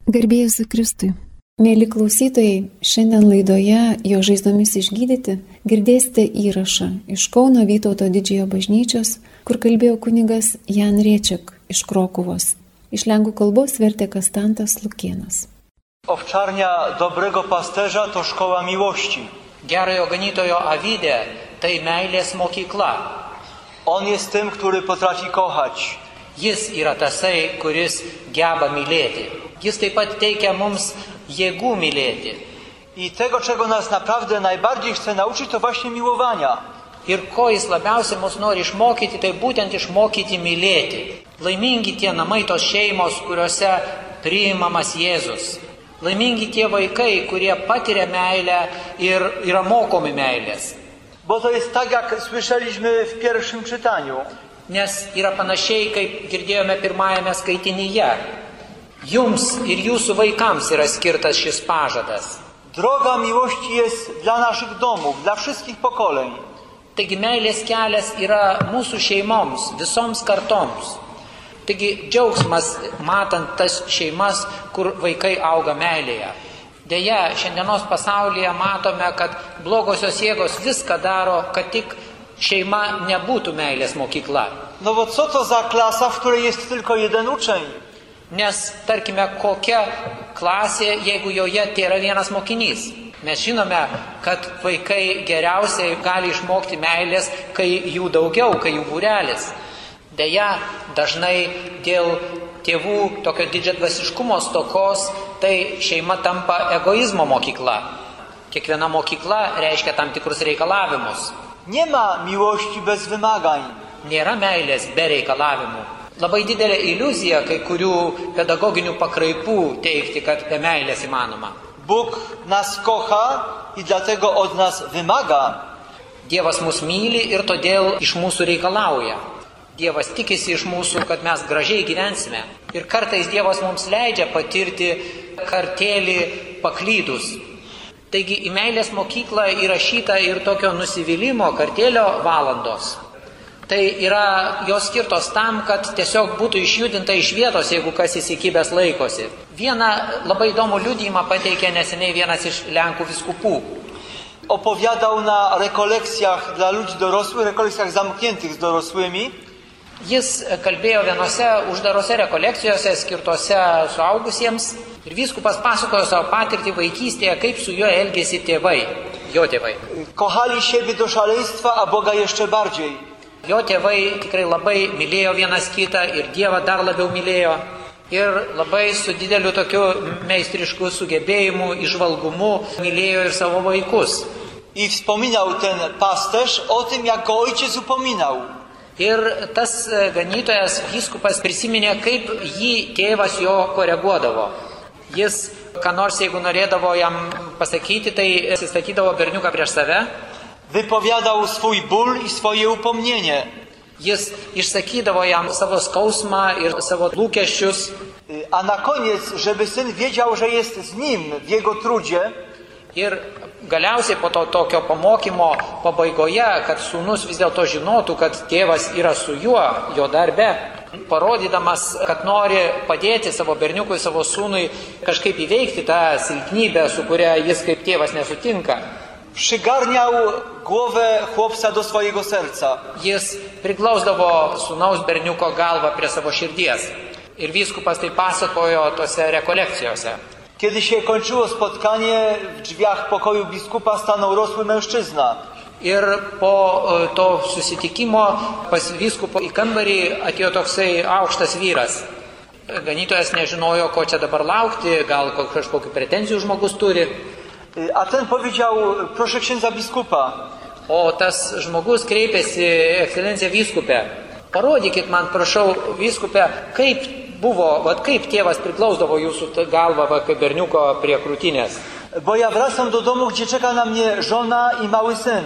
Garbė Jėzui Kristui. Mėly klausytojai, šiandien laidoje Jo žaizdomis išgydyti girdėsite įrašą iš Kauno Vytauto Didžiojo bažnyčios, kur kalbėjo kunigas Jan Riečiak iš Krokuvos. Iš lenkų kalbos vertė Kastantas Lukėnas. Owczarnia dobrego pasterza to szkoła miłości. Gerojo ganytojo avidė tai meilės mokykla. On jest tym, który potrafi kochać. Jis yra tasai, kuris geba mylėti. Jis taip pat teikia mums jėgų mylėti. I tego, czego nas naprawdę najbardziej chce nauczyć, to właśnie miłowania. Ir ko jis labiausiai mus nori išmokyti, tai būtent išmokyti mylėti. Laimingi tie namai, tos šeimos, kuriuose priimamas Jėzus. Laimingi tie vaikai, kurie patiria meilę ir yra mokomi meilės. Bo to jest tak, jak słyszeliśmy w pierwszym czytaniu. Nes yra panašiai, kaip girdėjome pirmajame skaitinyje. Jums ir jūsų vaikams yra skirtas šis pažadas. Droga miłości jest dla naszych domów, dla wszystkich pokoleń. Taigi meilės kelias yra mūsų šeimoms, visoms kartoms. Taigi džiaugsmas matant tas šeimas, kur vaikai auga meilėje. Deja, šiandienos pasaulyje matome, kad blogosios jėgos viską daro, kad tik šeima nebūtų meilės mokykla. No bo co to za klasa, w której jest tylko jeden uczeń? Nes, tarkime, kokia klasė, jeigu joje yra vienas mokinys. Mes žinome, kad vaikai geriausiai gali išmokti meilės, kai jų daugiau, kai jų būrelis. Deja, dažnai dėl tėvų tokio didžiadvasiškumo stokos, tai šeima tampa egoizmo mokykla. Kiekviena mokykla reiškia tam tikrus reikalavimus. Nie ma miłości bez wymagań. Nėra meilės be reikalavimų. Labai didelė iliuzija kai kurių pedagoginių pakraipų teikti, kad be meilės įmanoma. Bóg nas kocha i dlatego od nas wymaga. Dievas mus myli ir todėl iš mūsų reikalauja. Dievas tikisi iš mūsų, kad mes gražiai gyvensime. Ir kartais Dievas mums leidžia patirti kartėlį paklydus. Taigi į meilės mokyklą įrašyta ir tokio nusivylimo kartėlio valandos. Tai yra jos skirtos tam, kad tiesiog būtų išjudinta iš vietos, jeigu kas įsikibęs laikosi. Vieną labai įdomų liudijimą pateikė neseniai vienas iš Lenkų vyskupų. Opowiadał na rekolekcjach dla ludzi dorosłych, rekolekcjach zamkniętych z dorosłymi. Jis kalbėjo vienose uždarose rekolekcijose skirtose suaugusiems ir vyskupas pasakojo savo patirtį vaikystėje, kaip su juo elgėsi tėvai, jo tėvai. Kochali siebie do szaleństwa, a Boga jeszcze bardziej. Jo tėvai tikrai labai mylėjo vienas kitą ir Dievą dar labiau mylėjo. Ir labai su dideliu tokiu meistrišku sugebėjimu, įžvalgumu mylėjo ir savo vaikus. I wspominał ten pasterz o tym, jak go ojciec upominał. Ir tas ganytojas vyskupas prisiminė, kaip jį tėvas jo koreguodavo. Jis, ką nors jeigu norėdavo jam pasakyti, tai atsistatydavo berniuką prieš save. Wypowiadał swój ból i swoje upomnienie. Jis išsakydavo jam savo skausmą ir savo lūkesčius. A na koniec, żeby syn wiedział, że jest z nim w jego trudzie. Ir galiausiai po to tokio pamokymo pabaigoje, kad sūnus vis dėlto žinotų, kad tėvas yra su juo, jo darbe, parodydamas, kad nori padėti savo berniukui, savo sūnui kažkaip įveikti tą silpnybę, su kuria jis kaip tėvas nesutinka. Przygarniał głowę chłopca do swojego serca. Jis priglausdavo sūnaus berniuko galvą prie savo širdies. Ir vyskupas tai pasakojo tose rekolekcijose. Kiedy się kończyło spotkanie, w drzwiach pokoju biskupa stanął rosły mężczyzna. Ir po to susitikimo pas vyskupo į kambarį atėjo toksai aukštas vyras. Ganytojas nežinojo, ko čia dabar laukti, gal kažkokių pretenzijų žmogus turi. A ten powiedział, proszę księdza biskupa. O tas žmogus kreipėsi, ekscelencija vyskupė. Parodykit man, prašau, vyskupė, kaip buvo, kaip tėvas priglausdavo jūsų galvą kaip berniuko prie krūtinės. Bo ja wracam do domu, gdzie czeka na mnie żona i mały syn.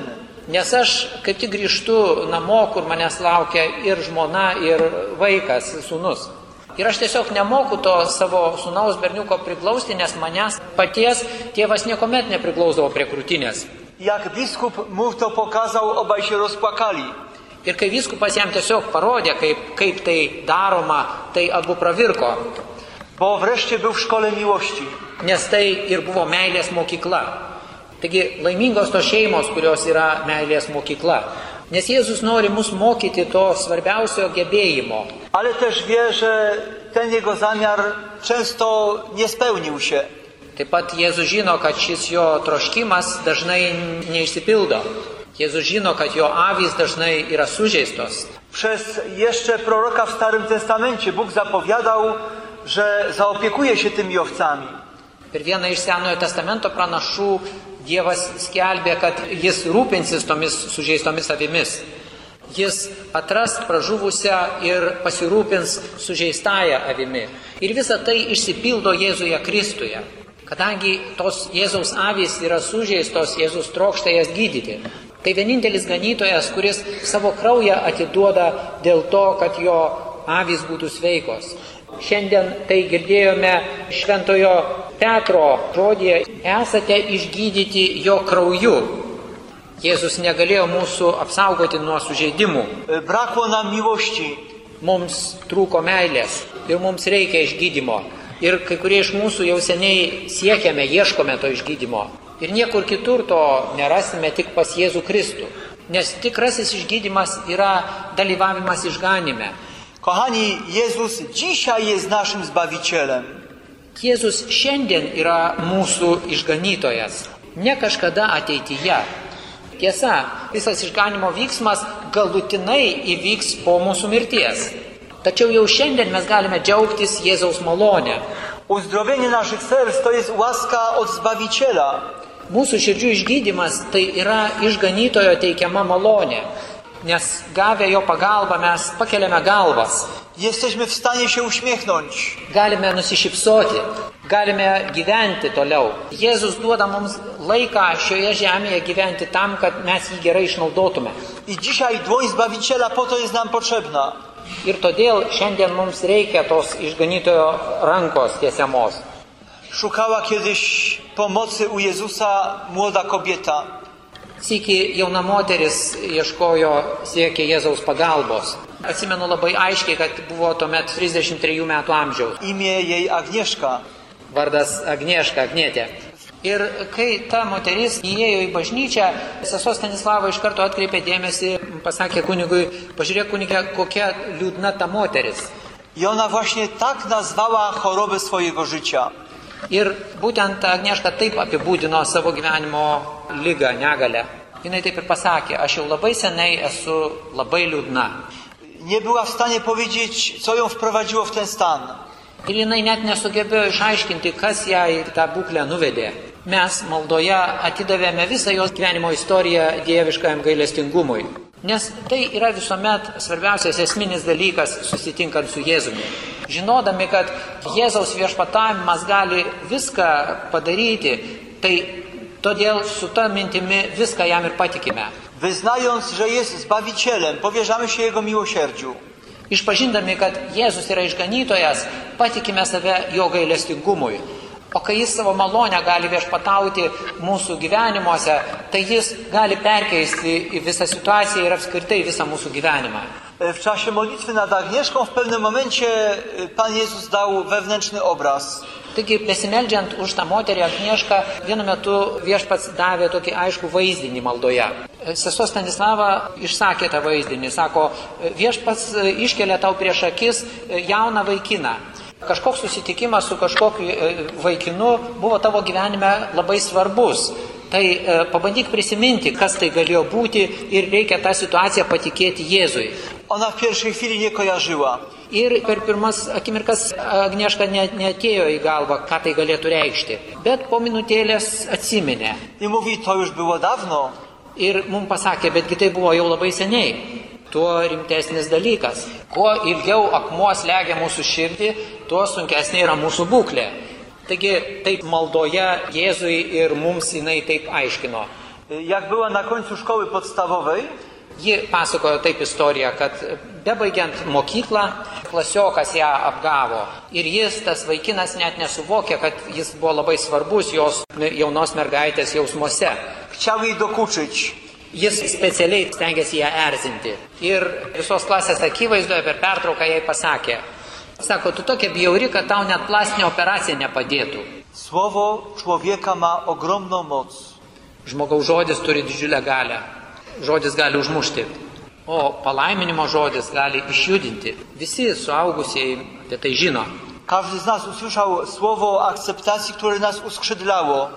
Nes aš kaip tik grįžtu namo, kur manęs laukia ir žmona, ir vaikas, sūnus. Ir aš tiesiog nemoku to savo sūnaus berniuko priglausti, nes manęs paties tėvas niekuomet nepriglausdavo prie krūtinės. Jak biskup mu to pokazał, obaj się rozpłakali. Ir kai vyskupas jam tiesiog parodė, kaip tai daroma, tai abu pravirko. bo wreszcie był w szkole miłości. Nes tai ir buvo meilės mokykla. Taigi laimingos tos šeimos, kurios yra meilės mokykla. Nes Jėzus nori mus mokyti to svarbiausio gebėjimo. Ale też wie, że ten jego zamiar często nie spełnił się. Taip pat Jėzus žino, kad šis jo troškimas dažnai neišsipildo. Jėzus žino, kad jo avys dažnai yra sužeistos. Przez jeszcze proroka w Starym Testamencie Bóg zapowiadał, że zaopiekuje się tymi owcami. Per vieną iš Senojo testamento pranašų Dievas skelbė, kad jis rūpinsis tomis sužeistomis avimis. Jis atras pražuvusią ir pasirūpins sužeistąją avimi. Ir visa tai išsipildo Jėzuje Kristuje. Kadangi tos Jėzaus avys yra sužeistos, Jėzus trokšta jas gydyti. Tai vienintelis ganytojas, kuris savo kraują atiduoda dėl to, kad jo avys būtų sveikos. Šiandien tai girdėjome šventojo Petro žodėje, esate išgydyti jo krauju. Jėzus negalėjo mūsų apsaugoti nuo sužeidimų. Brakło nam miłości. Mums trūko meilės ir mums reikia išgydymo. Ir kai kurie iš mūsų jau seniai siekiame, ieškome to išgydymo. Ir niekur kitur to nerasime, tik pas Jėzų Kristų. Nes tikrasis išgydymas yra dalyvavimas išganime. Kochani, Jezus dzisiaj jest naszym Zbawicielem. Jėzus šiandien yra mūsų išganytojas, ne kažkada ateityje. Tiesa, visas išganimo vyksmas galutinai įvyks po mūsų mirties. Tačiau jau šiandien mes galime džiaugtis Jėzaus malonę. Uzdrowienie naszych serc to jest łaska od Zbawiciela. Mūsų širdžių išgydymas tai yra išganytojo teikiama malonė. Nes gavę jo pagalbą mes pakeliame galvas. Jesteśmy w stanie się uśmiechnąć. Galime nusišypsoti, galime gyventi toliau. Jėzus duoda mums laiką šioje žemėje gyventi tam, kad mes jį gerai išnaudotume. I dzisiaj dłoń Zbawiciela po to jest nam potrzebna. Ir todėl šiandien mums reikia tos išganytojo rankos tiesiamos. Szukała kiedyś pomocy u Jezusa młoda kobieta. Sykį jauna moteris ieškojo, siekė Jėzaus pagalbos. Atsimenu labai aiškiai, kad buvo tuomet 33 metų amžiaus. Imię jej Agnieszka. Vardas Agnieszka, Agnietė. Ir kai ta moteris įėjo į bažnyčią, sesuo Stanislava iš karto atkreipė dėmesį, pasakė kunigui, pažiūrėk kunigė, kokia liūdna ta moteris. I ona właśnie tak nazwała chorobę swojego życia. Ir būtent Agnieszka taip apibūdino savo gyvenimo ligą, negalę. Jinai taip ir pasakė, aš jau labai seniai esu labai liūdna. Nie była w stanie powiedzieć, co ją wprowadziło w ten stan. Ir jinai net nesugebėjo išaiškinti, kas ją į tą būklę nuvedė. Mes maldoje atidavėme visą jos gyvenimo istoriją dieviškajam gailestingumui. Nes tai yra visuomet svarbiausias esminis dalykas susitinkant su Jėzumi. Žinodami, kad Jėzaus viešpatavimas gali viską padaryti, tai todėl su ta mintimi viską jam ir patikime. Wyznając, że jest Zbawicielem, powierzamy się Jego miłosierdziu. Išpažindami, kad Jėzus yra išganytojas, patikime save jo gailestingumui. O kai jis savo malonę gali viešpatauti mūsų gyvenimuose, tai jis gali perkeisti į visą situaciją ir apskritai visą mūsų gyvenimą. W czasie modlitwy nad Agnieszką w pewnym momencie Pan Jezus dał wewnętrzny obraz. Taigi, besimeldžiant už tą moterį Agniešką, vienu metu viešpats davė tokį aiškų vaizdinį maldoje. Sesuo Stanislava išsakė tą vaizdinį, sako, viešpats iškelia tau prieš akis jauną vaikiną. Kažkoks susitikimas su kažkokiu vaikinu buvo tavo gyvenime labai svarbus. Tai pabandyk prisiminti, kas tai galėjo būti ir reikia tą situaciją patikėti Jėzui. Ona w pierwszej chwili nie kojarzyła. Ir per pirmas akimirkas Agnieška neatėjo į galvą, ką tai galėtų reikšti. Bet po minutėlės atsiminė. I mówi, to już było dawno. Ir mums pasakė, betgi tai buvo jau labai seniai. Tuo rimtesnis dalykas. Kuo ilgiau akmuo slegia mūsų širdį, tuo sunkesnė yra mūsų būklė. Taigi taip maldoje Jėzui ir mums jinai taip aiškino. Jak była na końcu szkoły podstawowej, ji pasakojo taip istoriją, kad bebaigiant mokyklą, klasiokas ją apgavo. Ir jis, tas vaikinas, net nesuvokė, kad jis buvo labai svarbus jos jaunos mergaitės jausmuose. Chciał jej dokuczyć. Jis specialiai stengiasi ją erzinti. Ir visos klasės akivaizdoje per pertrauką jai pasakė, Sako, tu tokia bjauri, kad tau net plastinė operacija nepadėtų. Słowo człowieka ma ogromną moc. Žmogaus žodis turi didžiulę galę. Žodis gali užmušti. O palaiminimo žodis gali išjudinti. Visi suaugusieji apie tai žino. Każdy z nas usłyszał słowo akceptacji, które nas uskrzydlało.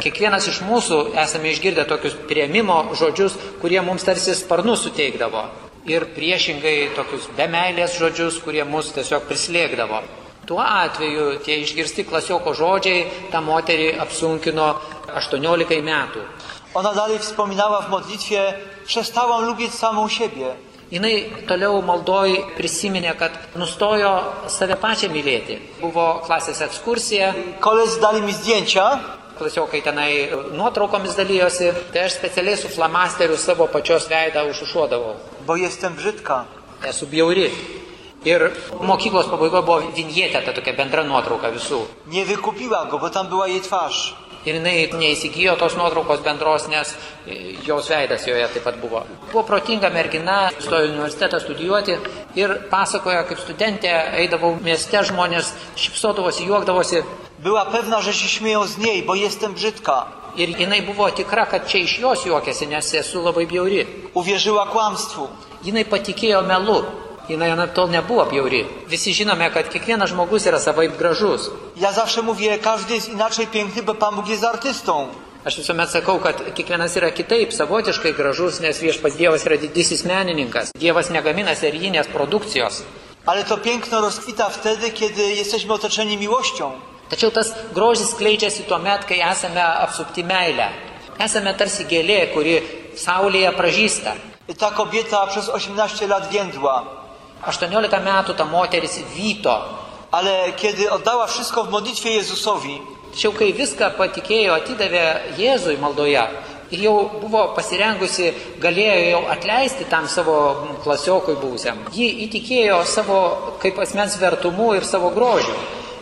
Kiekvienas iš mūsų esame išgirdę tokius priėmimo žodžius, kurie mums tarsi sparnus suteikdavo. Ir priešingai tokius be meilės žodžius, kurie mus tiesiog prislėgdavo. Tuo atveju tie išgirsti klasioko žodžiai tą moterį apsunkino 18 metų. Ona dalej wspominała w modlitwie: przestałam lubić samą siebie. Jinai toliau maldoj prisiminė, kad nustojo save pačią mylėti. Buvo klasės ekskursija. Koledzy dali mi zdjęcia. Klasiokai tenai nuotraukomis dalyjosi. Tai aš specialiai su flamasteriu savo pačios veidą užušuodavau. Bo jestem brzydka. Esu bjauri. Ir mokyklos pabaigoje buvo vinjetė, ta tokia bendra nuotrauka visų. Nie wykupiła go, bo tam była jej twarz. Ir jinai neįsigijo tos nuotraukos bendros, nes jos veidas joje taip pat buvo. Buvo protinga mergina, stojo į universitetą studijuoti ir pasakojo, kaip studentė eidavau mieste, žmonės šypsodavosi, juokdavosi. Była pewna, że się śmieją z niej, bo jestem brzydka. Ir jinai buvo tikra, kad čia iš jos juokiasi, nes esu labai bjauri. Uwierzyła kłamstwu. Jinai patikėjo melu. Jinai anaiptol nebuvo bjauri. Visi žinome, kad kiekvienas žmogus yra savaip gražus. Ja zawsze mówię, każdy jest inaczej piękny, bo Pan Bóg jest artystą. Aš visuomet sakau, kad kiekvienas yra kitaip, savotiškai gražus, nes Viešpats Dievas yra didysis menininkas. Dievas negamina serijinės produkcijos. Ale to piękno rozkwita wtedy, kiedy jesteśmy otoczeni miłością. Tačiau tas grožis skleidžiasi tuomet, kai esame apsupti meilę. Esame tarsi gėlė, kuri saulėje pražysta. Ta kobieta przez 18 lat więdła. 18 metų ta moteris vyto. Ale kiedy oddała wszystko w modlitwie Jezusowi, Tačiau kai viską patikėjo, atidavė Jėzui maldoje ir jau buvo pasirengusi, galėjo jau atleisti tam savo klasiokui buvusiam. Ji įtikėjo savo kaip asmens vertumu ir savo grožiu.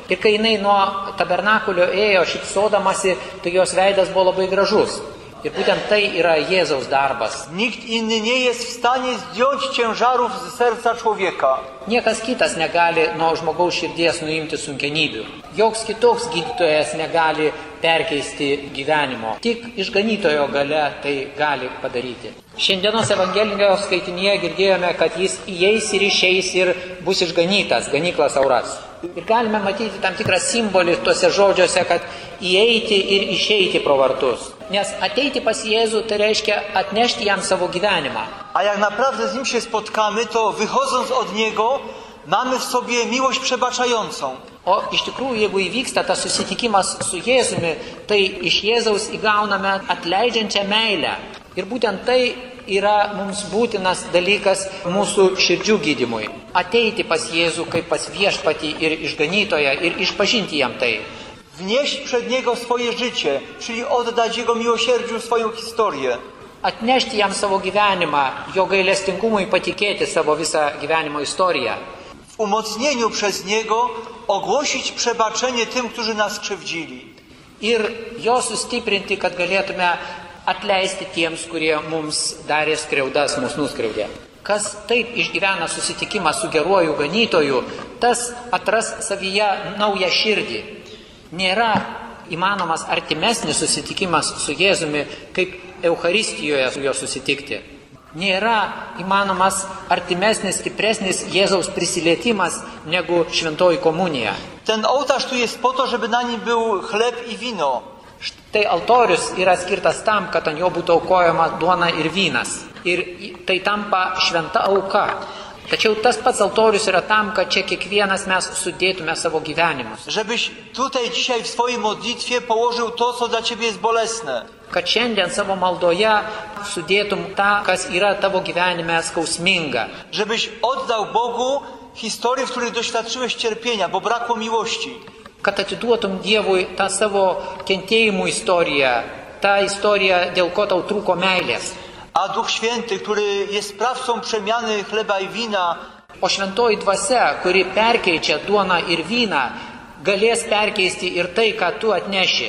Ir kai jinai nuo tabernakulio ėjo šypsodamasi, tai jos veidas buvo labai gražus. Ir būtent tai yra Jėzaus darbas. Nikt inny nie jest w stanie zdjąć ciężarów z serca człowieka. Niekas kitas negali nuo žmogaus širdies nuimti sunkenybių. Joks kitoks gydytojas negali perkeisti gyvenimo. Tik išganytojo gale tai gali padaryti. Šiandienos Evangelijos skaitinyje girdėjome, kad jis įeis ir išeis ir bus išganytas, ganyklas auras. Ir galime matyti tam tikrą simbolį tuose žodžiuose, kad įeiti ir išeiti pro vartus. Nes ateiti pas Jėzų tai reiškia atnešti jam savo gyvenimą. A jak naprawdę z Nim się spotkamy, to wychodząc od Niego mamy w sobie miłość przebaczającą. O iš tikrųjų, jeigu įvyksta tas susitikimas su Jėzumi, tai iš Jėzaus įgauname atleidžiančią meilę. Ir būtent tai yra mums būtinas dalykas mūsų širdžių gydymui. Ateiti pas Jėzų kaip pas Viešpatį ir išganytoją ir išpažinti jam tai. Wnieść przed Niego swoje życie, czyli oddać Jego miłosierdziu swoją historię. Atnešti jam savo gyvenimą, jo gailestingumui patikėti savo visą gyvenimo istoriją. W umocnieniu przez Niego ogłosić przebaczenie tym, którzy nas krzywdzili. Ir jo sustiprinti, kad galėtume atleisti tiems, kurie mums darė skriaudas, mus nuskriaudė. Kas taip išgyvena susitikimą su geruoju ganytoju, tas atras savyje naują širdį. Nėra įmanomas artimesnis susitikimas su Jėzumi, kaip Eucharistijoje su juo susitikti. Nėra įmanomas artimesnis, stipresnis Jėzaus prisilietimas negu šventoji komunija. Ten ołtarz tu jest po to, żeby na nim był chleb i wino. Štai altorius yra skirtas tam, kad ant jo būtų aukojama duona ir vynas. Ir tai tampa šventa auka. Tačiau tas pats altorius yra tam, kad čia kiekvienas mes sudėtume savo gyvenimus. Żebyś tutaj dzisiaj w swojej modlitwie położył to, co dla Ciebie jest bolesne. Kad šiandien savo maldoje sudėtum tą, kas yra tavo gyvenime skausminga. Żebyś oddał Bogu historię, w której doświadczyłeś cierpienia, bo brakło miłości. Kad atiduotum Dievui tą savo kentėjimų istoriją, tą istoriją, dėl ko tau trūko meilės. A Duch Święty, który jest sprawcą przemiany chleba i wina, O šventoji dvasia, kuri perkeičia duoną ir vyną, galės perkeisti ir tai, ką tu atneši.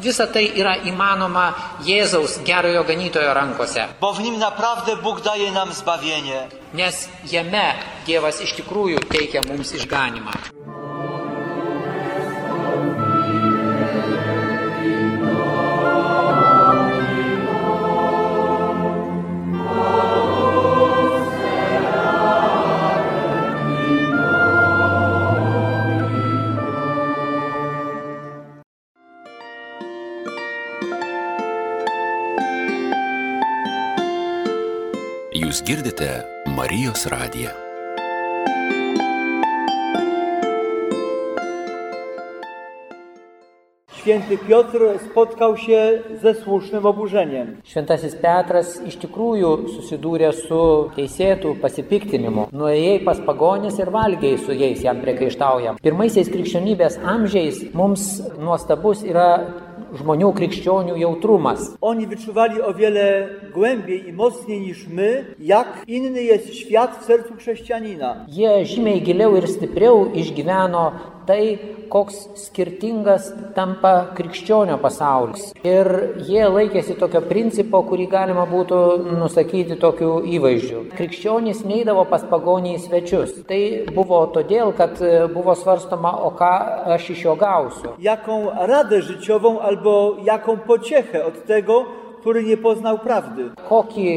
Visa tai yra įmanoma Jėzaus gerojo ganytojo rankose. Bo w nim naprawdę Bóg daje nam zbawienie. Nes jame Dievas iš tikrųjų teikia mums išganimą. Jūs girdite Marijos radiją. Święty Piotr spotkał się ze słusznym oburzeniem. Šventasis Petras iš tikrųjų susidūrė su teisėtų pasipiktinimu. Nuėjai pas pagonis ir valgiai su jais, jam priekaištaujam. Pirmaisiais krikščionybės amžiais mums nuostabus yra žmonių krikščionių jautrumas. Oni wyczuwali o wiele głębiej i mocniej niż my, jak inny jest świat w sercu chrześcijanina. Jie žymiai giliau ir stipriau išgyveno tai, koks skirtingas tampa krikščionio pasaulis. Ir jie laikėsi tokio principo, kurį galima būtų nusakyti tokiu įvaizdžiu. Krikščionys neidavo pas pagonį į svečius. Tai buvo todėl, kad buvo svarstoma, o ką aš iš jo gausiu. Jaką radę życiową albo jaką pociechę od tego, który nie poznał prawdy. Kokį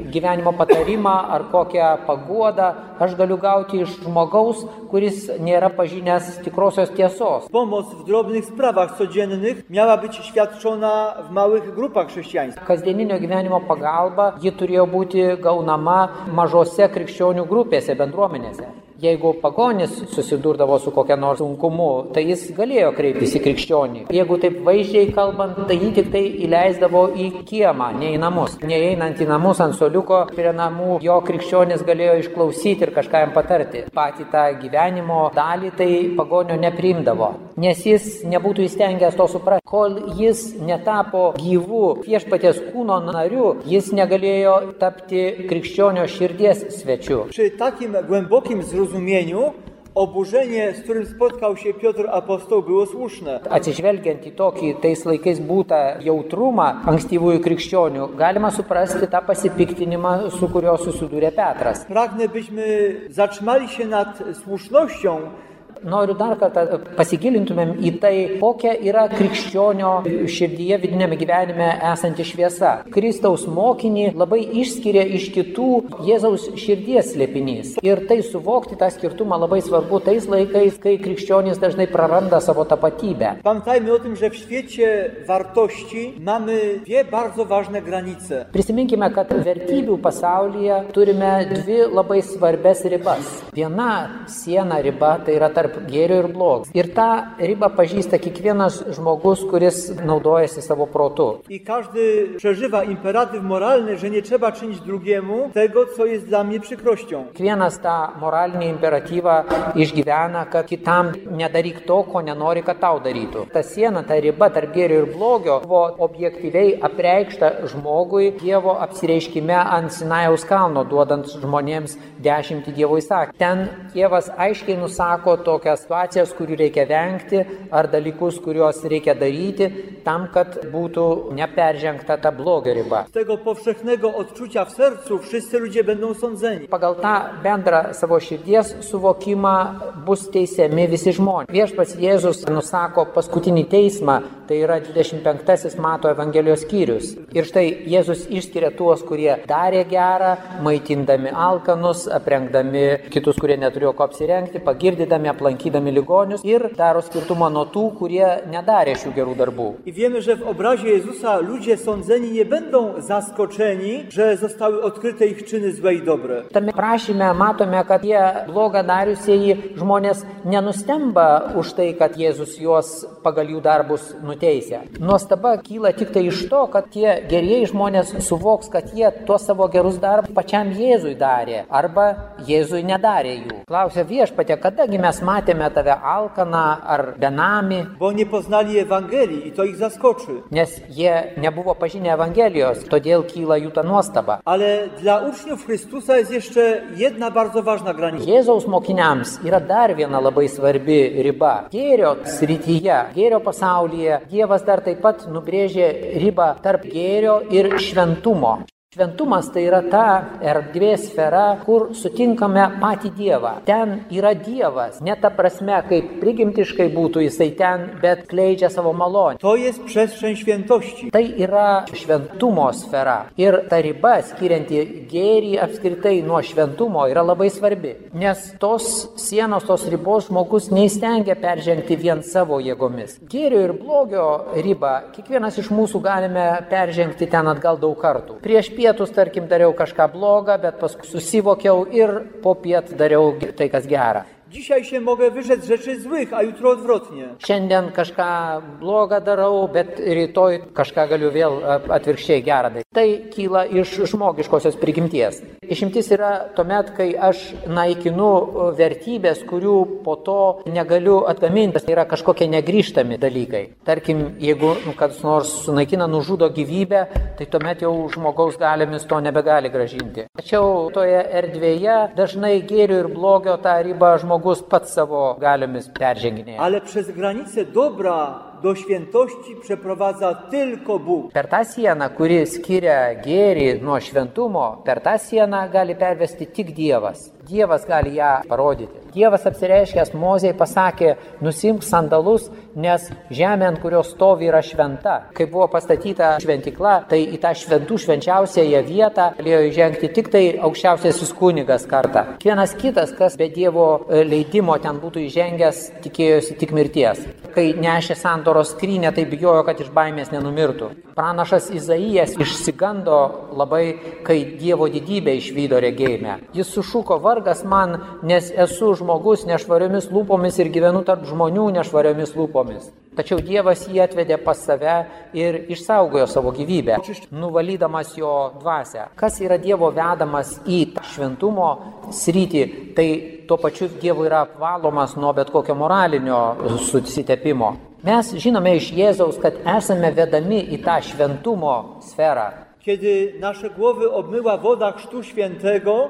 gyvenimo patarimą ar kokią paguodą aš galiu gauti iš žmogaus, kuris nėra pažinęs tikrosios tiesos. Pomoc w drobnych sprawach codziennych miała być świadczona w małych grupach chrześcijańskich. Kasdieninio gyvenimo pagalba ji turėjo būti gaunama mažose krikščionių grupėse, bendruomenėse. Jeigu pagonis susidurdavo su kokia nors sunkumu, tai jis galėjo kreiptis į krikščionį. Jeigu taip vaizdžiai kalbant, tai jį tik tai įleisdavo į kiemą, ne į namus. Neeinant į namus ant suoliuko prie namų, jo krikščionis galėjo išklausyti ir kažką jam patarti. Patį tą gyvenimo dalį tai pagonio nepriimdavo, nes jis nebūtų įstengęs to suprasti. Kol jis netapo gyvų viešpaties kūno nariu, jis negalėjo tapti krikščionio širdies svečiu. Przy takim głębokim zrozumieniu oburzenie, z którym spotkał się Piotr apostoł, było słuszne. Atsižvelgiant į tokį tais laikais būtą jautrumą ankstyvųjų krikščionių, galima suprasti tą pasipiktinimą, su kurio susidūrė Petras. Pragnę, byśmy zatrzymali się nad słusznością. Noriu dar kartą pasigilintumėm į tai, kokia yra krikščionio širdyje vidinėme gyvenime esanti šviesa. Kristaus mokinį labai išskiria iš kitų Jėzaus širdies slėpinys. Ir tai suvokti tą skirtumą labai svarbu tais laikais, kai krikščionys dažnai praranda savo tapatybę. Pamiętajmy o tym, że w świecie wartości mamy dwie bardzo ważne granice. Prisiminkime, kad vertybių pasaulyje turime dvi labai svarbes ribas. Viena siena riba tai yra tarp gėrio ir blogio. Ir tą ribą pažįsta kiekvienas žmogus, kuris naudojasi savo protu. I każdy przeżywa imperatyw moralny, że nie trzeba czynić drugiemu tego, co jest dla mnie przykrością. Kiekvienas tą moralinį imperatyvą išgyvena, kad kitam nedaryk to, ko nenori, kad tau darytų. Ta siena, ta riba tarp gėrio ir blogio buvo objektyviai apreikšta žmogui Dievo apsireiškime ant Sinajaus kalno, duodant žmonėms 10 Dievo įsakymų. Ten Dievas aiškiai nusako tokias situacijas, kurių reikia vengti, ar dalykus, kuriuos reikia daryti, tam, kad būtų neperžengta ta blogio riba. Z tego powszechnego odczucia w sercu wszyscy ludzie będą sądzeni. Pagal tą bendrą savo širdies suvokimą bus teisiami visi žmonės. Viešpats Jėzus nusako paskutinį teismą, tai yra 25 Mato Evangelijos skyrius. Ir štai Jėzus išskiria tuos, kurie darė gerą, maitindami alkanus, aprengdami kitus, kurie neturėjo ko apsirengti, pagirdydami, aplankydami ligonius, ir daro skirtumą nuo tų, kurie nedarė šių gerų darbų. I wiemy, że w obrazie Jezusa ludzie sądzeni nie będą zaskoczeni, że zostały odkryte ich czyny złe i dobre. Tame prašyme matome, kad jie blogą dariusieji žmonės nenustemba už tai, kad Jėzus juos pagal jų darbus nuteisia. Nuostaba kyla tik tai iš to, kad tie gerieji žmonės suvoks, kad jie tuos savo gerus darbus pačiam Jėzui darė arba Jėzui nedarė jų. Klausia Viešpatie, kadagi mes matėme tave alkaną ar benamį? Bo nie poznali Ewangelii i to ich zaskoczy. Nes jie nebuvo pažinę Evangelijos, todėl kyla jų ta nuostaba. Ale dla uczniów Chrystusa jest jeszcze jedna bardzo ważna granica. Jėzaus mokiniams yra dar viena labai svarbi riba. Gėrio srityje, gėrio pasaulyje Dievas dar taip pat nubrėžė ribą tarp gėrio ir šventumo. Šventumas tai yra ta erdvės sfera, kur sutinkame patį Dievą. Ten yra Dievas, ne ta prasme, kaip prigimtiškai būtų jisai ten, bet kleidžia savo malonę. To jest przestrzeń świętości. Tai yra šventumo sfera. Ir ta riba, skirianti gėrį apskritai nuo šventumo, yra labai svarbi. Nes tos sienos, tos ribos žmogus neįstengia peržengti vien savo jėgomis. Gėrio ir blogio ribą kiekvienas iš mūsų galime peržengti ten atgal daug kartų. Prieš pietus, tarkim, dariau kažką blogą, bet paskui susivokiau ir po piet dariau tai, kas gera. Dzisiaj się mogę wyrzec rzeczy złych, a jutro odwrotnie. Šiandien kažką blogą darau, bet rytoj kažką galiu vėl atvirkščiai gerą daryti. Tai kyla iš žmogiškosios prigimties. Išimtis yra tuomet, kai aš naikinu vertybės, kurių po to negaliu atgaminti. Tai yra kažkokie negrįžtami dalykai. Tarkim, jeigu kas nors sunaikina, nužudo gyvybę, tai tuomet jau žmogaus galiomis to nebegali grąžinti. Tačiau toje erdvėje dažnai gėrio ir blogio tą ribą žmogus pats savo galiomis perženginėja. Ale przez granicę dobra do świętości przeprowadza tylko Bóg. Per tą sieną, kuri skiria gėrį nuo šventumo, per tą sieną gali pervesti tik Dievas. Dievas gali ją parodyti. Dievas apsireiškęs Mozei pasakė, nusimk sandalus, nes žemė, ant kurios stovi, yra šventa. Kai buvo pastatyta šventykla, tai į tą šventų švenčiausiąją vietą galėjo įžengti tik tai aukščiausiasis kunigas kartą. Vienas kitas, kas be Dievo leidimo ten būtų įžengęs, tikėjosi tik mirties. Kai nešė sandoros skrynę, tai bijojo, kad iš baimės nenumirtų. Pranašas Izaijas išsigando labai, kai Dievo didybę išvydo regėjime. Jis sušuko, vargas man, nes esu žmogus nešvariomis lūpomis ir gyvenu tarp žmonių nešvariomis lūpomis. Tačiau Dievas jį atvedė pas save ir išsaugojo savo gyvybę, nuvalydamas jo dvasią. Kas yra Dievo vedamas į šventumo sritį, tai tuo pačiu Dievo yra apvalomas nuo bet kokio moralinio susitepimo. Mes žinome iš Jėzaus, kad esame vedami į tą šventumo sferą. Kiedy nasze głowy obmyła woda Chrztu Świętego,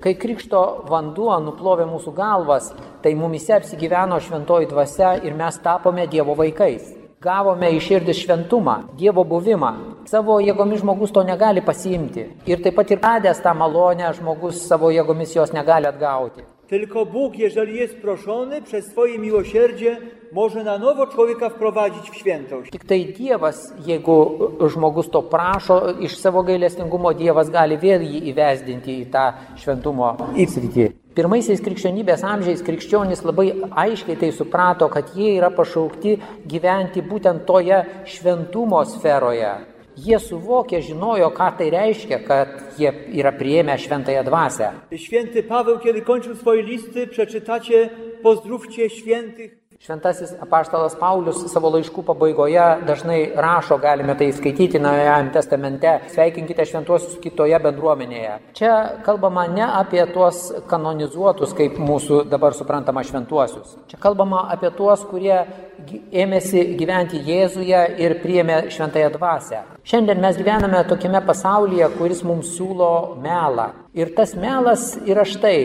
kai krikšto vanduo nuplovė mūsų galvas, tai mumise apsigyveno šventoji dvasia ir mes tapome Dievo vaikais. Gavome į širdį šventumą, Dievo buvimą. Savo jėgomis žmogus to negali pasiimti. Ir taip pat ir radęs tą malonę, žmogus savo jėgomis jos negali atgauti. Tylko Bóg, jeżeli jest proszony, przez swoje miłosierdzie może na nowo człowieka wprowadzić w świętość. Tik tai Dievas, jeigu žmogus to prašo, iš savo gailestingumo Dievas gali vėl jį įvesdinti į tą šventumo sritį. Pirmaisiais krikščionybės amžiais krikščionys labai aiškiai tai suprato, kad jie yra pašaukti gyventi būtent toje šventumo sferoje. Jie suvokė, žinojo, ką tai reiškia, kad jie yra priėmę šventąją dvasię. Święty Paweł, kiedy kończył swoje listy, przeczytacie pozdrówcie świętych. Šventasis apaštalas Paulius savo laiškų pabaigoje dažnai rašo, galime tai skaityti Naujajame testamente, sveikinkite šventuosius kitoje bendruomenėje. Čia kalbama ne apie tuos kanonizuotus, kaip mūsų dabar suprantama šventuosius. Čia kalbama apie tuos, kurie ėmėsi gyventi Jėzuje ir priėmė šventąją dvasią. Šiandien mes gyvename tokiame pasaulyje, kuris mums siūlo melą. Ir tas melas yra štai,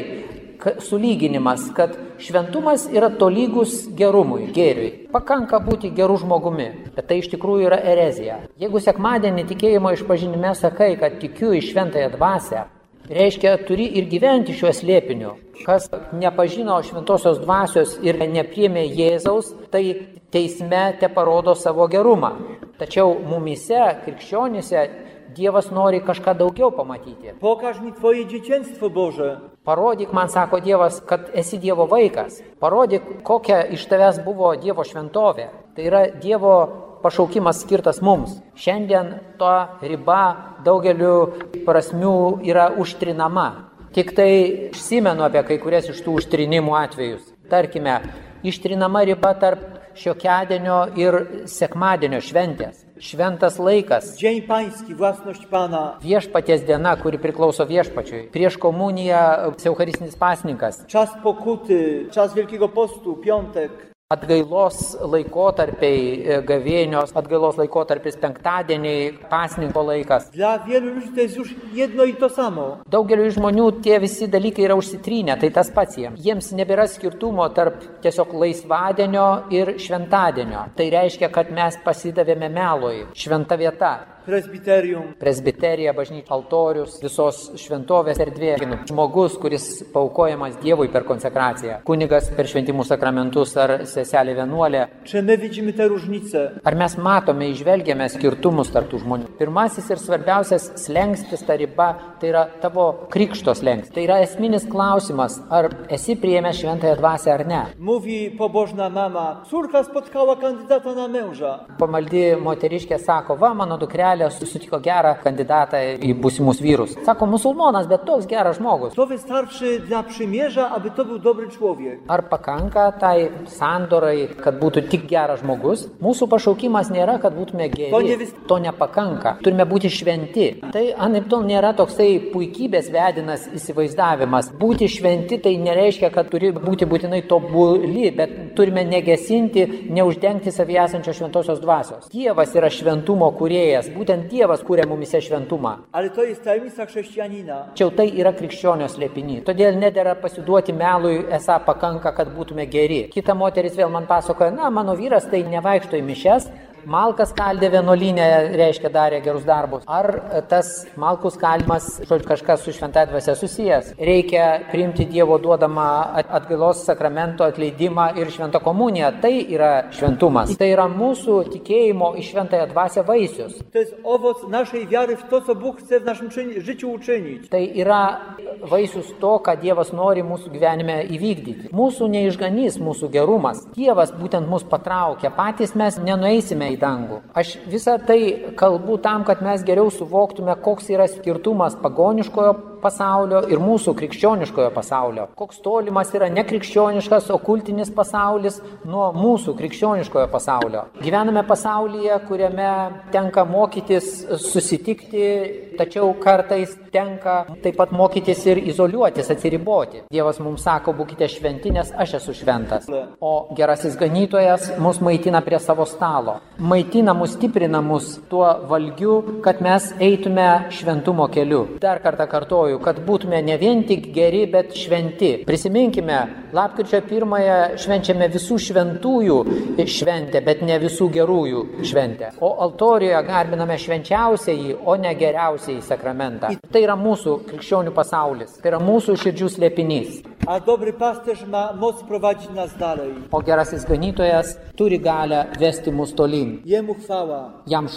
sulyginimas, kad šventumas yra tolygus gerumui, gėriui. Pakanka būti gerų žmogumi, bet tai iš tikrųjų yra erezija. Jeigu sekmadienį tikėjimo išpažinime sakai, kad tikiu į šventąją dvasią, reiškia, turi ir gyventi šiuo slėpiniu. Kas nepažino šventosios dvasios ir nepriėmė Jėzaus, tai teisme te parodo savo gerumą. Tačiau mumise, krikščionyse, Dievas nori kažką daugiau pamatyti. Pokaż mi twoje dzieciństwo Boże. Parodyk man, sako Dievas, kad esi Dievo vaikas. Parodyk, kokia iš tavęs buvo Dievo šventovė. Tai yra Dievo pašaukimas skirtas mums. Šiandien to riba daugeliu prasmių yra užtrinama. Tik tai užsimenu apie kai kurias iš tų užtrinimų atvejus. Tarkime, ištrinama riba tarp šiokiadienio ir sekmadienio šventės. Šventas laikas. Dzień Pański, własność Pana. Viešpaties diena, kuri priklauso viešpačiui. Prieš komuniją eucharistinis pasninkas. Czas pokuty, czas Wielkiego Postu, piątek. Atgailos laikotarpiai, gavėnios, atgailos laikotarpis penktadieniai, pasninko laikas. Dla wielu ludzi to jest już jedno i to samo. Daugeliu žmonių tie visi dalykai yra užsitrynę, tai tas pats jiems. Jiems nebėra skirtumo tarp tiesiog laisvadienio ir šventadienio. Tai reiškia, kad mes pasidavėme melui. Šventa vieta. Presbiterium. Presbiterija, bažnyčia, altorius, visos šventovės erdvė. Žmogus, kuris paukojamas Dievui per konsekraciją. Kunigas per šventimų sakramentus ar seselė vienuolė. Czy my widzimy te różnice? Ar mes matome, įžvelgiame skirtumus tarp tų žmonių? Pirmasis ir svarbiausias slengstis, ta riba, tai yra tavo krikšto slengstis. Tai yra esminis klausimas, ar esi priėmęs šventąją dvasią ar ne. Mówi pobożna mama, córka spotkała kandydata na męża. Pamaldi moteriškė sako, va, mano dukrelė susitiko gerą kandidatą į būsimus vyrus. Sako, musulmonas, bet toks geras žmogus. To wystarczy dla przymierza, aby to był dobry człowiek. Ar pakanka tai sandorai, kad būtų tik geras žmogus? Mūsų pašaukimas nėra, kad būtume geri. To nepakanka. Turime būti šventi. Tai anaiptol nėra toksai puikybės vedinas įsivaizdavimas. Būti šventi tai nereiškia, kad turi būti būtinai tobuli, bet turime negesinti, neuždengti savyje esančios šventosios dvasios. Dievas yra šventumo kūrėjas. Būtent Dievas kūrė mumise šventumą. Ale to jest tajemnica chrześcijanina. Tačiau tai yra krikščionio slėpinys. Todėl nedera pasiduoti melui, esą pakanka, kad būtume geri. Kita moteris vėl man pasakoja, na, mano vyras tai nevaikšto į mišias, malkas kaldė vienuolyne, reiškia darė gerus darbus. Ar tas malkų skaldimas, žodžiu, kažkas su šventąja dvasia susijęs? Reikia priimti Dievo duodamą atgailos sakramento atleidimą ir šventą komuniją. Tai yra šventumas. Tai yra mūsų tikėjimo į šventąją dvasią vaisius. To jest owoc naszej wiary w to, co Bóg chce w naszym życiu uczynić. Tai yra vaisius to, ką Dievas nori mūsų gyvenime įvykdyti. Mūsų neišganys, mūsų gerumas. Dievas būtent mus patraukia. Patys mes nenueisime į dangų. Aš visą tai kalbu tam, kad mes geriau suvoktume, koks yra skirtumas pagoniškojo pasaulio ir mūsų krikščioniškojo pasaulio. Koks tolimas yra nekrikščioniškas, okultinis pasaulis nuo mūsų krikščioniškojo pasaulio. Gyvename pasaulyje, kuriame tenka mokytis susitikti, tačiau kartais tenka taip pat mokytis ir izoliuotis, atsiriboti. Dievas mums sako, būkite šventi, nes aš esu šventas. O gerasis ganytojas mus maitina prie savo stalo. Maitina mus, stiprina mus tuo valgiu, kad mes eitume šventumo keliu. Dar kartą kartoju, kad būtume ne vien tik geri, bet šventi. Prisiminkime, lapkričio 1 švenčiame visų šventųjų šventę, bet ne visų gerųjų šventę. O altorijoje garbiname švenčiausiai, o ne geriausiai sakramentą. Tai yra mūsų krikščionių pasaulis, tai yra mūsų širdžių slėpinys. A dobry pasterz ma moc prowadzić nas dalej. O gerasis ganytojas turi galią vesti mus tolyn. Jemu chwała. Jam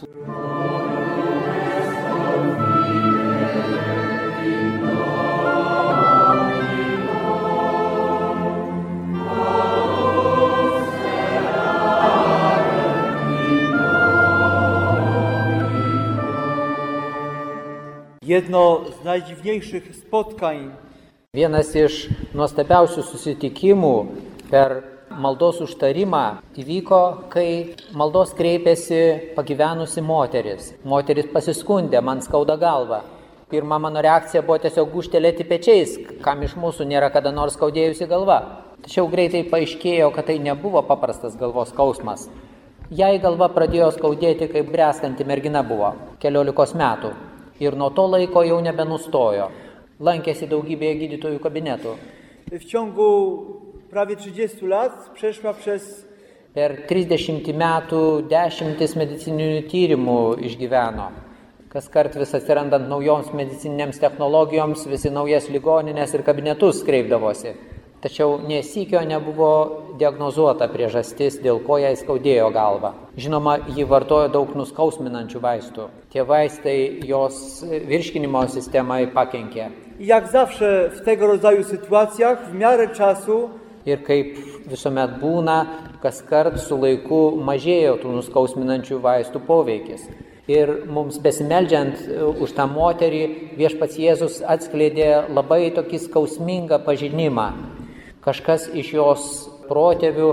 Jedno z najdziwniejszych spotkań. Vienas iš nuostabiausių susitikimų per maldos užtarimą įvyko, kai maldos kreipėsi pagyvenusi moteris. Moteris pasiskundė, man skauda galva. Pirma mano reakcija buvo tiesiog gūžtelėti pečiais, kam iš mūsų nėra kada nors skaudėjusi galva. Tačiau greitai paaiškėjo, kad tai nebuvo paprastas galvos skausmas. Jai galva pradėjo skaudėti, kai bręstanti mergina buvo, 14 metų. Ir nuo to laiko jau nebenustojo. Lankėsi daugybėje gydytojų kabinetų. W ciągu prawie 30 lat przeszła przez... Per 30 metų 10 medicininių tyrimų išgyveno. Kas kart vis atsirandant naujoms medicininiams technologijoms, visi naujas ligoninės ir kabinetus kreipdavosi. Tačiau nesykio nebuvo diagnozuota priežastis, dėl ko jai skaudėjo galvą. Žinoma, ji vartojo daug nuskausminančių vaistų. Tie vaistai jos virškinimo sistemai pakenkė. Jak zawsze w tego rodzaju sytuacjach, w miarę czasu... Ir kaip visuomet būna, kas kart su laiku mažėjo tų nuskausminančių vaistų poveikis. Ir mums besimeldžiant už tą moterį, viešpats Jėzus atskleidė labai tokį skausmingą pažinimą. Kažkas iš jos protėvių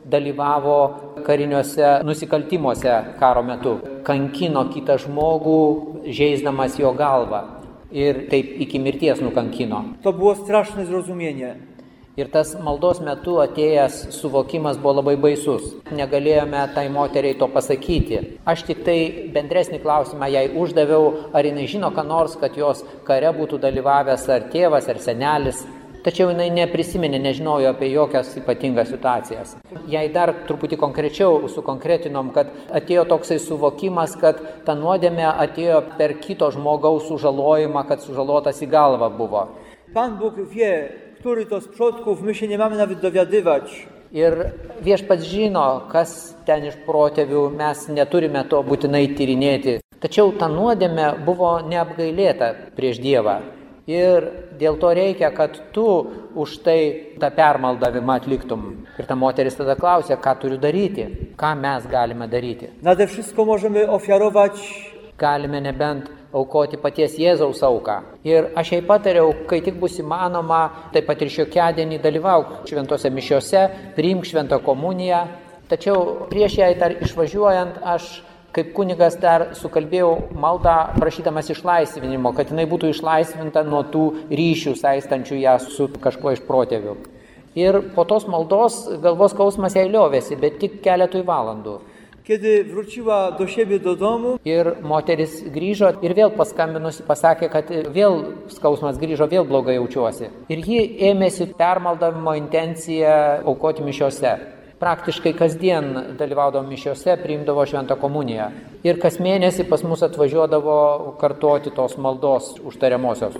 dalyvavo kariniuose nusikaltimuose karo metu. Kankino kitą žmogų, žeisdamas jo galvą. Ir taip iki mirties nukankino. To było straszne zrozumienie. Ir tas maldos metu atėjęs suvokimas buvo labai baisus. Negalėjome tai moteriai to pasakyti. Aš tik tai bendresnį klausimą jai uždaviau, ar jinai žino, ką nors, kad jos kare būtų dalyvavęs ar tėvas, ar senelis. Tačiau jinai neprisiminė, nežinojo apie jokias ypatingas situacijas. Jai dar truputį konkrečiau sukonkretinom, kad atėjo toksai suvokimas, kad ta nuodėmė atėjo per kito žmogaus sužalojimą, kad sužalotas į galvą buvo. Pan Bóg wie, który to z przodków, my się nie mamy nawet dowiadywać. Ir viešpats žino, kas ten iš protėvių, mes neturime to būtinai tyrinėti. Tačiau ta nuodėmė buvo neapgailėta prieš Dievą. Ir dėl to reikia, kad tu už tai tą permaldavimą atliktum. Ir ta moteris tada klausė, ką turiu daryti, ką mes galime daryti. Nade wszystko możemy ofiarować. Galime nebent aukoti paties Jėzaus auką. Ir aš jai patariau, kai tik bus įmanoma, taip pat ir šiokiadienį dalyvauk šventose mišiose, priimk šventą komuniją. Tačiau prieš jai dar išvažiuojant, aš kaip kunigas dar sukalbėjau maldą prašydamas išlaisvinimo, kad jinai būtų išlaisvinta nuo tų ryšių saistančių ją su kažkuo iš protėvių. Ir po tos maldos galvos skausmas jai liovėsi, bet tik keletui valandų. Kiedy wróciła do siebie do domu, ir moteris grįžo ir vėl paskambinusi pasakė, kad vėl skausmas grįžo, vėl blogai jaučiuosi. Ir ji ėmėsi permaldavimo intenciją aukoti mišiose. Praktiškai kasdien dalyvaudavo mišiose, priimdavo šventą komuniją. Ir kas mėnesį pas mus atvažiuodavo kartoti tos maldos užtariamosios.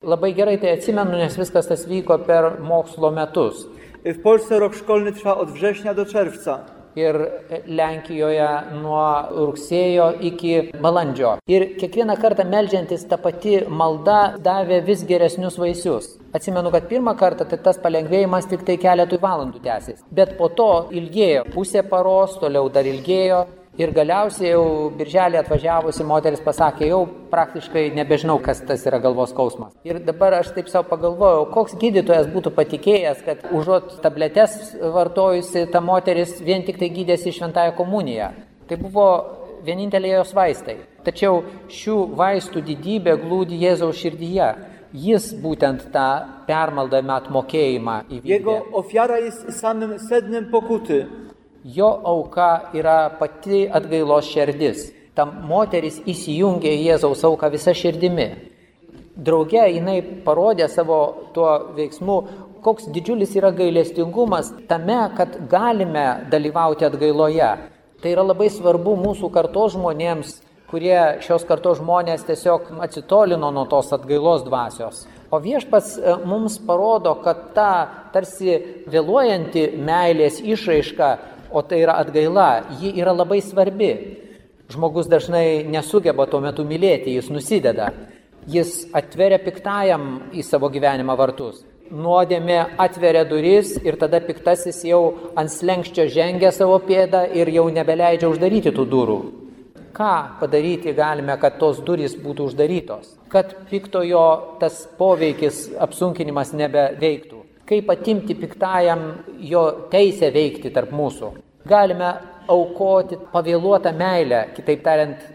Labai gerai tai atsimenu, nes viskas tas vyko per mokslo metus. W Polsce rok szkolny trwa od września do czerwca. Ir Lenkijoje nuo rugsėjo iki balandžio. Ir kiekvieną kartą meldžiantis ta pati malda davė vis geresnius vaisius. Atsimenu, kad pirmą kartą tai tas palengvėjimas tik tai keletui valandų tęsis. Bet po to ilgėjo pusę paros, toliau dar ilgėjo. Ir galiausiai jau birželį atvažiavusi moteris pasakė, jau praktiškai nebežinau, kas tas yra galvos skausmas. Ir dabar aš taip savo pagalvojau, koks gydytojas būtų patikėjęs, kad užuot tabletes vartojusi ta moteris vien tik tai gydėsi šventąją komuniją. Tai buvo vienintelė jos vaistai. Tačiau šių vaistų didybė glūdi Jėzaus širdyje. Jis būtent tą permaldavimą atmokėjimą įvykdė. Jego ofiara jest samym sednem pokuty. Jo auka yra pati atgailos širdis. Ta moteris įsijungė į Jėzaus auką visą širdimi. Drauge jinai parodė savo tuo veiksmu, koks didžiulis yra gailestingumas tame, kad galime dalyvauti atgailoje. Tai yra labai svarbu mūsų kartos žmonėms, kurie šios kartos žmonės tiesiog atsitolino nuo tos atgailos dvasios. O viešpats mums parodo, kad ta tarsi vėluojanti meilės išraiška, o tai yra atgaila, ji yra labai svarbi. Žmogus dažnai nesugeba tuo metu mylėti, jis nusideda. Jis atveria piktajam į savo gyvenimą vartus. Nuodėmė atveria duris ir tada piktasis jau ant slenkščio žengia savo pėdą ir jau nebeleidžia uždaryti tų durų. Ką padaryti galime, kad tos durys būtų uždarytos? Kad piktojo tas poveikis, apsunkinimas nebeveiktų. Kaip atimti piktajam jo teisę veikti tarp mūsų. Galime aukoti pavėluotą meilę, kitaip tariant,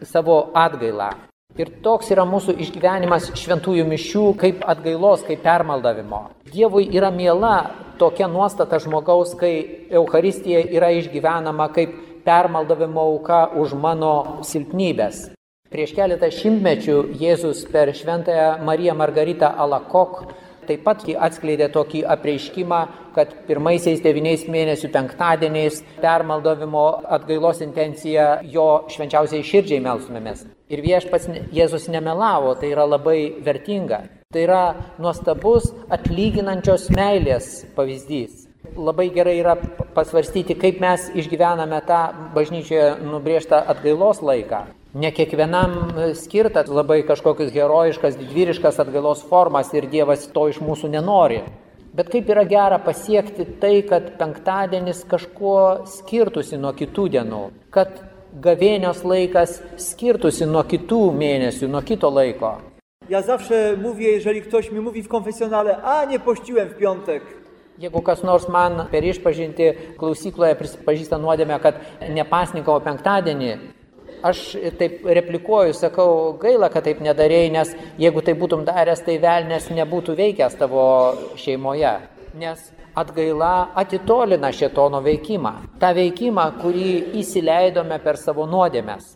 savo atgailą. Ir toks yra mūsų išgyvenimas šventųjų mišių kaip atgailos, kaip permaldavimo. Dievui yra miela tokia nuostata žmogaus, kai Eucharistija yra išgyvenama kaip permaldavimo auka už mano silpnybės. Prieš keletą šimtmečių Jėzus per šventąją Mariją Margaritą Alakok taip pat atskleidė tokį apreiškimą, kad pirmaisiais 9 mėnesių penktadieniais permaldavimo atgailos intencija jo švenčiausiai širdžiai melstumėmės. Ir viešpats Jėzus nemelavo, tai yra labai vertinga. Tai yra nuostabus atlyginančios meilės pavyzdys. Labai gerai yra pasvarstyti, kaip mes išgyvename tą bažnyčioje nubrėžtą atgailos laiką. Ne kiekvienam skirta labai kažkokius herojiškas, didvyriškas atgailos formas ir Dievas to iš mūsų nenori. Bet kaip yra gera pasiekti tai, kad penktadienis kažkuo skirtųsi nuo kitų dienų, kad gavėnios laikas skirtųsi nuo kitų mėnesių, nuo kito laiko. Ja zawsze mówię, jeżeli ktoś mi mówi w konfesjonale, a nie pościłem w piątek. Jeigu kas nors man per išpažinti klausykloje prisipažįsta nuodėmę, kad nepasninkavo penktadienį, aš taip replikuoju, sakau, gaila, kad taip nedarėjai, nes jeigu tai būtum daręs, tai velnias nebūtų veikęs tavo šeimoje. nes atgaila atitolina šėtono veikimą. Ta veikimą, kurį įsileidome per savo nuodėmes.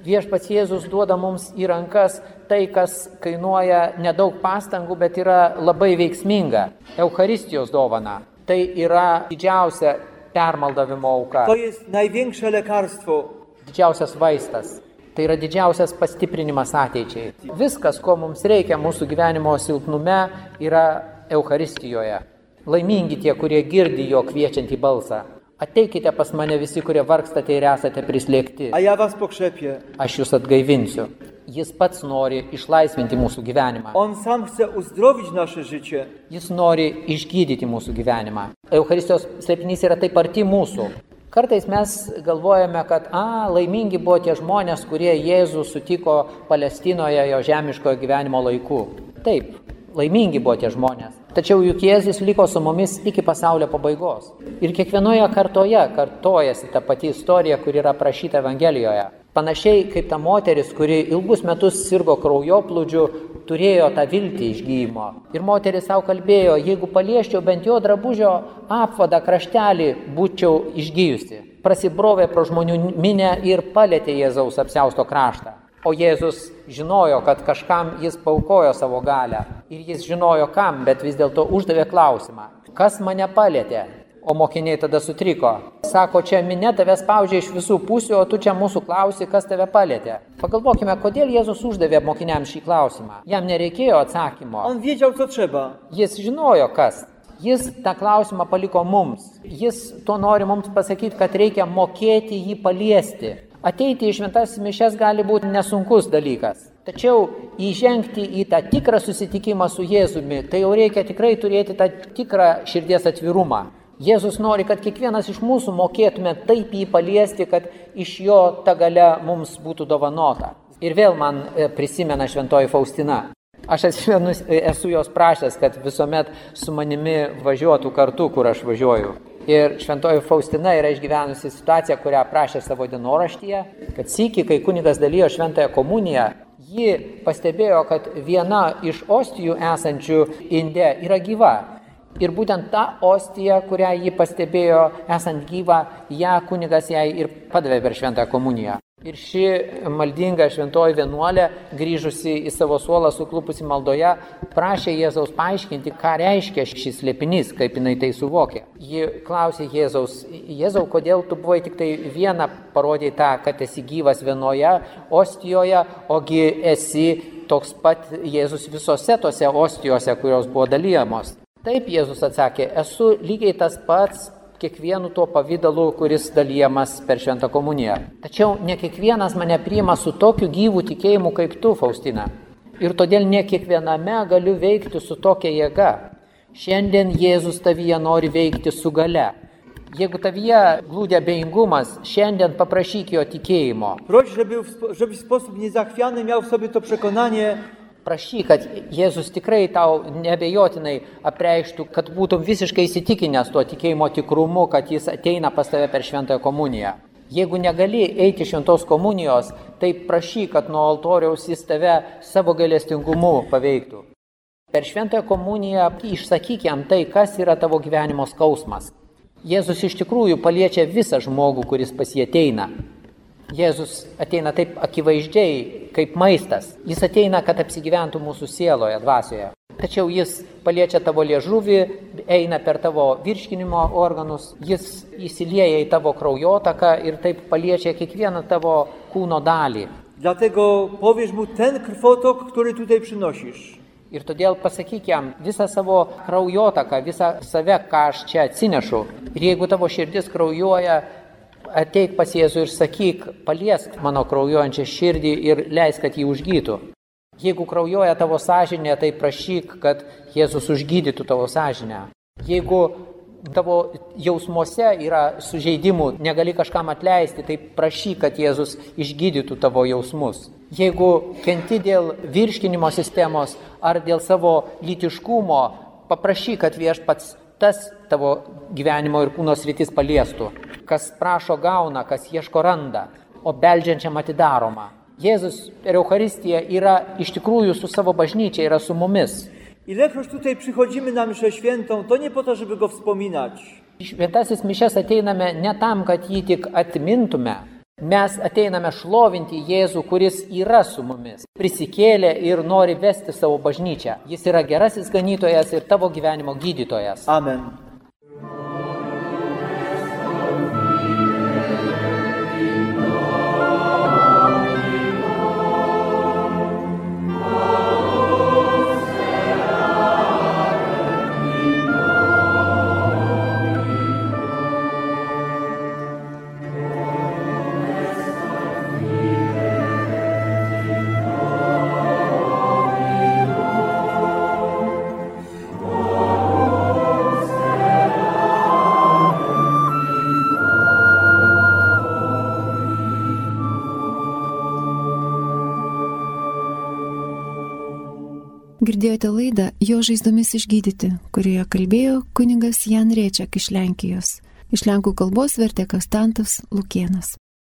Viešpats Jėzus duoda mums į rankas tai, kas kainuoja nedaug pastangų, bet yra labai veiksminga. Eucharistijos dovana. Tai yra didžiausia permaldavimo auka. To jest największe lekarstwo. Didžiausias vaistas. Tai yra didžiausias pastiprinimas ateičiai. Viskas, ko mums reikia mūsų gyvenimo silpnume, yra Eucharistijoje. Laimingi tie, kurie girdi jo kviečiantį balsą. Ateikite pas mane visi, kurie vargstate ir esate prislėgti. A ja was pokrzepię. Aš jūs atgaivinsiu. Jis pats nori išlaisvinti mūsų gyvenimą. On sam chce uzdrowić nasze życie. Jis nori išgydyti mūsų gyvenimą. Eucharistijos slėpinys yra taip arti mūsų. Kartais mes galvojame, kad laimingi buvo tie žmonės, kurie Jėzų sutiko Palestinoje jo žemiškojo gyvenimo laikų. Taip, laimingi buvo tie žmonės. Tačiau juk Jėzus liko su mumis iki pasaulio pabaigos. Ir kiekvienoje kartoje kartojasi ta pati istorija, kuri yra aprašyta Evangelijoje. Panašiai kaip ta moteris, kuri ilgus metus sirgo kraujoplūdžiu, turėjo tą viltį išgyjimo. Ir moteris savo kalbėjo, jeigu palieščiau bent jo drabužio apvadą kraštelį, būčiau išgyjusi. Prasibrovė pro žmonių minę ir palietė Jėzaus apsiausto kraštą. O Jėzus žinojo, kad kažkam jis paukojo savo galią. Ir jis žinojo kam, bet vis dėlto uždavė klausimą. Kas mane palietė? O mokiniai tada sutriko. Sako, čia minė tave spaudžia iš visų pusių, o tu čia mūsų klausi, kas tave palietė. Pagalvokime, kodėl Jėzus uždavė mokiniams šį klausimą. Jam nereikėjo atsakymo. On wiedział, co trzeba. Jis žinojo, kas. Jis tą klausimą paliko mums. Jis to nori mums pasakyti, kad reikia mokėti jį paliesti. Ateiti į šventas mišias gali būti nesunkus dalykas. Tačiau įžengti į tą tikrą susitikimą su Jėzumi, tai jau reikia tikrai turėti tą tikrą širdies atvirumą. Jėzus nori, kad kiekvienas iš mūsų mokėtume taip jį paliesti, kad iš jo ta galia mums būtų dovanota. Ir vėl man prisimena šventoji Faustina. Aš esu jos prašęs, kad visuomet su manimi važiuotų kartu, kur aš važiuoju. Ir šventoji Faustina yra išgyvenusi situaciją, kurią aprašė savo dienoraštyje, kad sykį, kai kunigas dalijo šventąją komuniją, ji pastebėjo, kad viena iš ostijų esančių inde yra gyva. Ir būtent ta ostija, kurią ji pastebėjo esant gyvą, ją kunigas jai ir padavė per šventąją komuniją. Ir ši maldinga šventoji vienuolė, grįžusi į savo suolą suklupusi maldoje, prašė Jėzaus paaiškinti, ką reiškia šis slėpinys, kaip jinai tai suvokė. Ji klausė Jėzaus, Jėzau, kodėl tu buvai tik tai vieną parodė tą, kad esi gyvas vienoje ostijoje, ogi esi toks pat Jėzus visose tose ostijose, kurios buvo dalyjamos. Taip Jėzus atsakė, esu lygiai tas pats kiekvienu tuo pavydalu, kuris dalyjamas per šventą komuniją. Tačiau ne kiekvienas mane priima su tokiu gyvu tikėjimu kaip tu, Faustina. Ir todėl ne kiekviename galiu veikti su tokia jėga. Šiandien Jėzus tavyje nori veikti su galia. Jeigu tavyje glūdi abejingumas, šiandien paprašyk jo tikėjimo. Proś, żeby w sposób niezachwiany miał w sobie to przekonanie. Prašyk, kad Jėzus tikrai tau neabejotinai apreikštų, kad būtum visiškai įsitikinęs tuo tikėjimo tikrumu, kad jis ateina pas tave per šventąją komuniją. Jeigu negali eiti šventos komunijos, tai prašyk, kad nuo altoriaus jis tave savo gailestingumu paveiktų. Per šventąją komuniją išsakyk jam tai, kas yra tavo gyvenimo skausmas. Jėzus iš tikrųjų paliečia visą žmogų, kuris pas jį ateina. Jėzus ateina taip akivaizdžiai, kaip maistas. Jis ateina, kad apsigyventų mūsų sieloje, dvasioje. Tačiau jis paliečia tavo liežuvį, eina per tavo virškinimo organus, jis įsilieja į tavo kraujotaką ir taip paliečia kiekvieną tavo kūno dalį. Dlatego powiesz mu ten krwotok, który tutaj przynosisz. Ir todėl pasakyk jam visą savo kraujotaką, visą save, ką aš čia atsinešu. Ir jeigu tavo širdis kraujuoja, ateik pas Jėzų ir sakyk, paliesk mano kraujuojančią širdį ir leisk, kad jį užgytų. Jeigu kraujuoja tavo sąžinė, tai prašyk, kad Jėzus užgydytų tavo sąžinę. Jeigu tavo jausmuose yra sužeidimų, negali kažkam atleisti, tai prašyk, kad Jėzus išgydytų tavo jausmus. Jeigu kenti dėl virškinimo sistemos ar dėl savo lytiškumo, paprašyk, kad Viešpats tas tavo gyvenimo ir kūno sritis paliestų. Kas prašo gauna, kas ieško randa, o beldžiančiam atidaroma. Jėzus per Eucharistiją yra iš tikrųjų su savo bažnyčia, yra su mumis. Ilekroć tutaj przychodzimy na mszę świętą, to nie po to, żeby go wspominać. Šventasis mišias ateiname ne tam, kad jį tik atmintume. Mes ateiname šlovinti Jėzų, kuris yra su mumis, prisikėlė ir nori vesti savo bažnyčią. Jis yra gerasis ganytojas ir tavo gyvenimo gydytojas. Amen. Girdėjote laidą Jo žaizdomis išgydyti, kurioje kalbėjo kunigas Jan Rėčiak iš Lenkijos. Iš lenkų kalbos vertė Konstantas Lukėnas.